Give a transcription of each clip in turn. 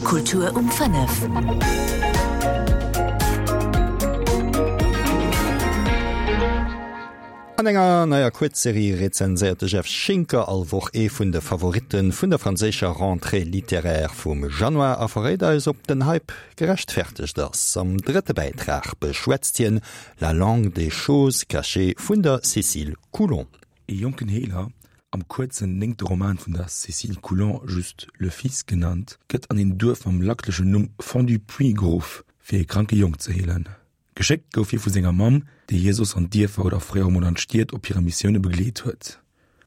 Kultur um 5. An enger neier Kuerzserie rezenséiert de Jeff Schinker all Woch ee vun de Favoritte vun der franséischer Rentrée littéraire vum Januar a verréit eis, ob den Hype gerechtfertegt ass. Am drëtte Bäitrag beschwätzt hien La langue des choses cachées vun der Cécile Coulon. Ee jonken Heeler, am kuerzen néngte Roman vun der Cécile Coulon just Le Fils genannt, gëtt an een Duerf mam lacklechen Numm Fond-du-Puits geruff, fir ee kranke Jong ze heelen. Geschéckt gouf hie vu senger Mamm, déi hie soss an d'Dierfer oder fréier emol an d'Stied op hire Missioune begleet huet.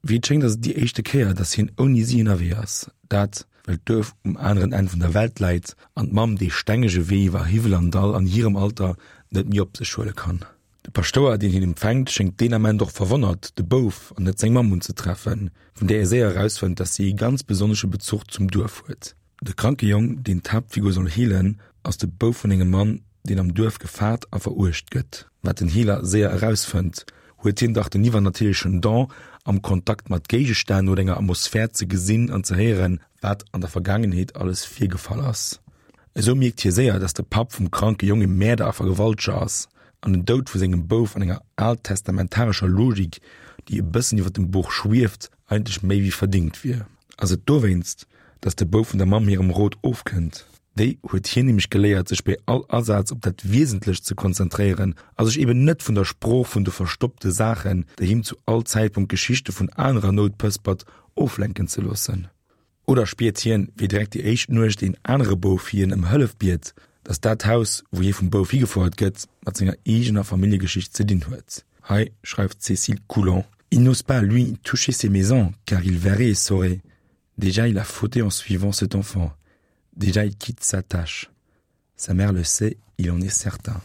Wéi et schéngt ass et déi éischte Kéier, datt hien ouni si ënnerwee ass, dat well d'Duerf um aneren Enn vun der Welt läit an d'Mamm dee stengege Wee iwwer Hiwwel an Dall an hirem Alter net méi op sech huele kann. De Paschtouer, deen hien empfänkt, schéngt deen Ament och verwonnert, de Bouf an net seng Mamm unzetreffen, vun där e séier erausfënnt, datt si ee ganz besonnesche Bezuch zum Duerf huet. De kranke Jong, deen d'Haaptfigur soll heelen, ass de Bouf vun engem Mann, deen am Duerf gefaart a veruecht gëtt. Wat den Heeler séier erausfënnt, huet hien dach den iwwernatierlechen Don, am Kontakt mat Géigestänn oder enger Atmosphär ze gesinn an ze héieren, wat an der Vergaangenheet alles virgefall ass. Esou mierkt hie séier, dass de Papp vum kranke Jong e Mäerder a Vergewalteger ass an den Doud vu sengem Bouf an enger altsestamentarescher Logik, déi e bëssen iwwer dem Buch schwieft, eigentlech méi wéi verdingt wier. Ass et dowéinst, dass de Bouf vun der Mamm hirem Rot ofkënnt? Déi huet hien nämlech geléiert, sech bei all Asaz op dat Wiesentlecht ze konzentréieren a sech eben net vun der Sprooch vun de verstoppte Saachen, déi him zu all Zäitpunkt Geschichte vun anerer Nout pëspert, oflenken ze loossen. Oder spiert hien, wéi direkt déi éischt Nuecht een anere Bouf hien ëm Hëllef biet, datt dat Haus, wou hie vum Bouf higefouert gëtt, mat senger eegener Familljegeschicht ze dinn huet? Hei schreift d'Cécile Coulon, Il n'ose pas, lui, toucher ces maisons, car il verrait et saurait. Déjà il a fauté en suivant cet enfant. Déjà il quitte sa tâche. Sa mère le sait, il en est certain.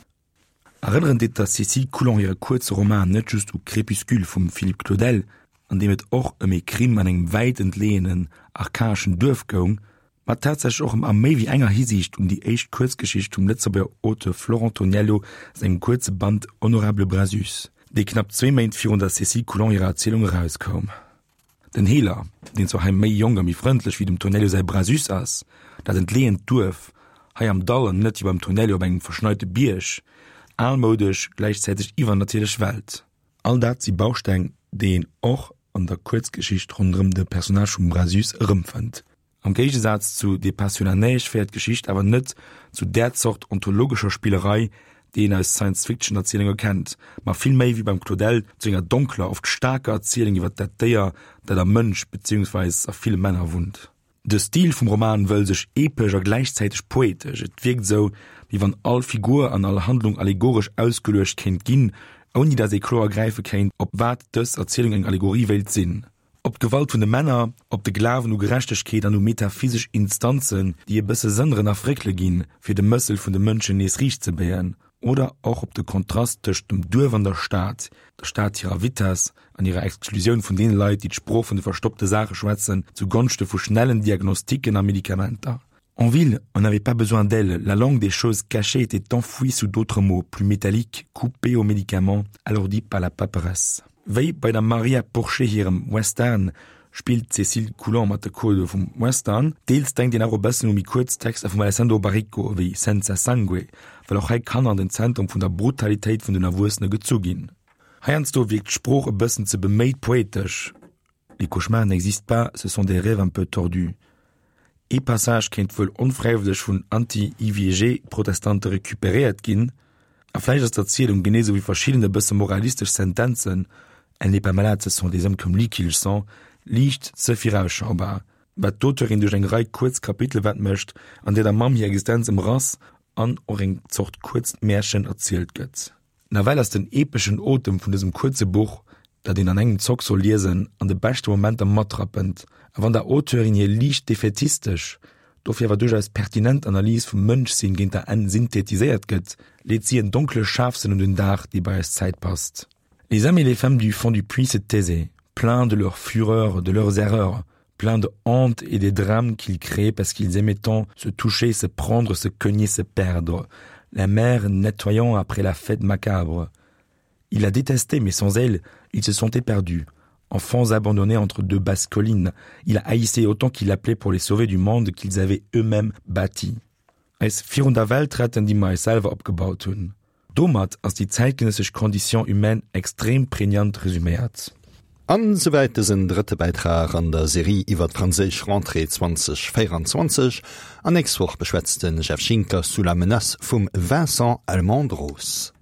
Erënneren deet der Cécile Coulon hire kuerze Roman net just u Crépuscule vum Philippe Claudel, an deem et och ëm ee Crime an engem wäit entleeënen, archaeschen Duerf goung, ma tatsächlech och ëm a méi wéi enger Hisiicht un déi éischt Kuerzgeschicht vum Lëtzebuerger Auteur Florent Toniello sengem kuerze Band Honorable Brasus, dee knapp zwee Méint virun der Cécile Coulon hirer Erzielung erauskoum. Den Heeler, deen zwar hei méi jonk a méi frëndlech wéi dem Tonello säi Brasus ass, dat entleeënt Duerf, hei am Dall an net wéi beim Tonello op engem verschneite Bierg, almoudesch, gläichzäiteg iwwernatierlech Welt. All dat si Bausteng, déi een och an der Kuerzgeschicht ronderëm de Personnage vum Brasus erëmfënnt. Am Géigesaz zu Des pas sur la neige féiert d'Geschicht awer net zu där Zort ontologescher Spillerei, déi een aus Science-Fiction-Erzielunge kennt, ma vill méi, wéi beim Claudel, zu enger donkler, oft staarker Erzielung iwwer dat Déier, dat am Mënsch, beziehungsweis a ville Männer wunnt. De Stil vum Roman wëll sech epesch a gläichzäiteg poetesch, et wierkt esou, wéi wann all Figur an all Handlung allegoresch ausgeluecht kéint ginn, ouni datt ee kloer gräife kéint, op wat dës Erzielung eng Allegorie wéilt sinn. Op d'Gewalt vun de Männer, op de Glawen u Gerechtegkeet an u metaphysesch Instanzen, déi e bësse sënneren a fréckele ginn, fir de Mëssel vun de Mënschen nees riicht ze béien, oder och op de Kontrast tëscht dem Duerf an der Stad, der Stad hirer Vitess an hirer Exklusioun vun deene Leit, déi d'Sprooch vun de verstoppte Saache schwätzen, zu Gonschte vu schnellen Diagnostiken a Medikamenter. En ville, on n'avait pas besoin d'elle, la langue des choses cachées était enfouie sous d'autres mots, plus métalliques, coupés aux médicaments, alourdis par la paperasse. Wéi bei der Maria Porchet hirem Western spillt d'Cécile Coulon mat de Codë vum Western. Deels denkt een awer e bëssen u méi kuerz Texter vum Alessandro Baricco ewéi Senza Sangue, well och hei Kanner an den Zentrum vun der Brutalitéit vun den Erwuessene gezu ginn. Heiansdo wierkt d'Sprooch e bëssen ze beméit poetesch. Les cauchemars n'existent pas, ce sont des rêves un peu tordus. Ee Passage kéint wuel onfräiwëlleg vun Anti-IVG-Protestante recuperéiert ginn. A vläicht ass d'Erzielung, genee sou wéi verschidden e bësse moralistesch Sentenzen, Elle n'est pas malade, ce sont des hommes comme lui qui le sont, liicht ze virausschaubar, wat d'Auteurin duerch eng Rei kuerz Kapitele mécht, an där der Mamm hir Existenz ëmrass an och eng Zort kuerzt Märchen erzielt gëtt. Nawell ass den epeschen Otem vun dësem kuerze Buch, dat een an engem Zock soll liesen, an de beschte Momenter matrappend. A wann der Auteurin hir liicht defätistesch, dofir awer duerchaus pertinent Analys vum Mënschsinn géint der Enn synthetiséiert gëtt, leet si en donkle Scharfsënn un den Dag, dee bei eis Zäit passt. Les hommes et les femmes du fond du puits se taisaient, pleins de leur fureur, de leurs erreurs, pleins de honte et des drames qu'ils créaient parce qu'ils aimaient tant se toucher, se prendre, se cogner, se perdre, la mer nettoyant après la fête macabre. Il la détestait, mais sans elle, il se sentait perdu. Enfants abandonnés entre deux basses collines, il haïssait autant qu'il appelait pour les sauver du monde qu'ils avaient eux-mêmes bâti. Eis virun der Welt retten, déi mer eis selwer opgebaut hunn. Domat ass déi zäitgenëssesch Condition humaine extrem prégnant resuméiert. An souwäit dësen drëtte Bäitrag an der Serie iwwer d'franséisch Rentrée 2024. An nächst Woch beschwätzt de Jeff Schinker Sous la menace vum Vincent Almendros.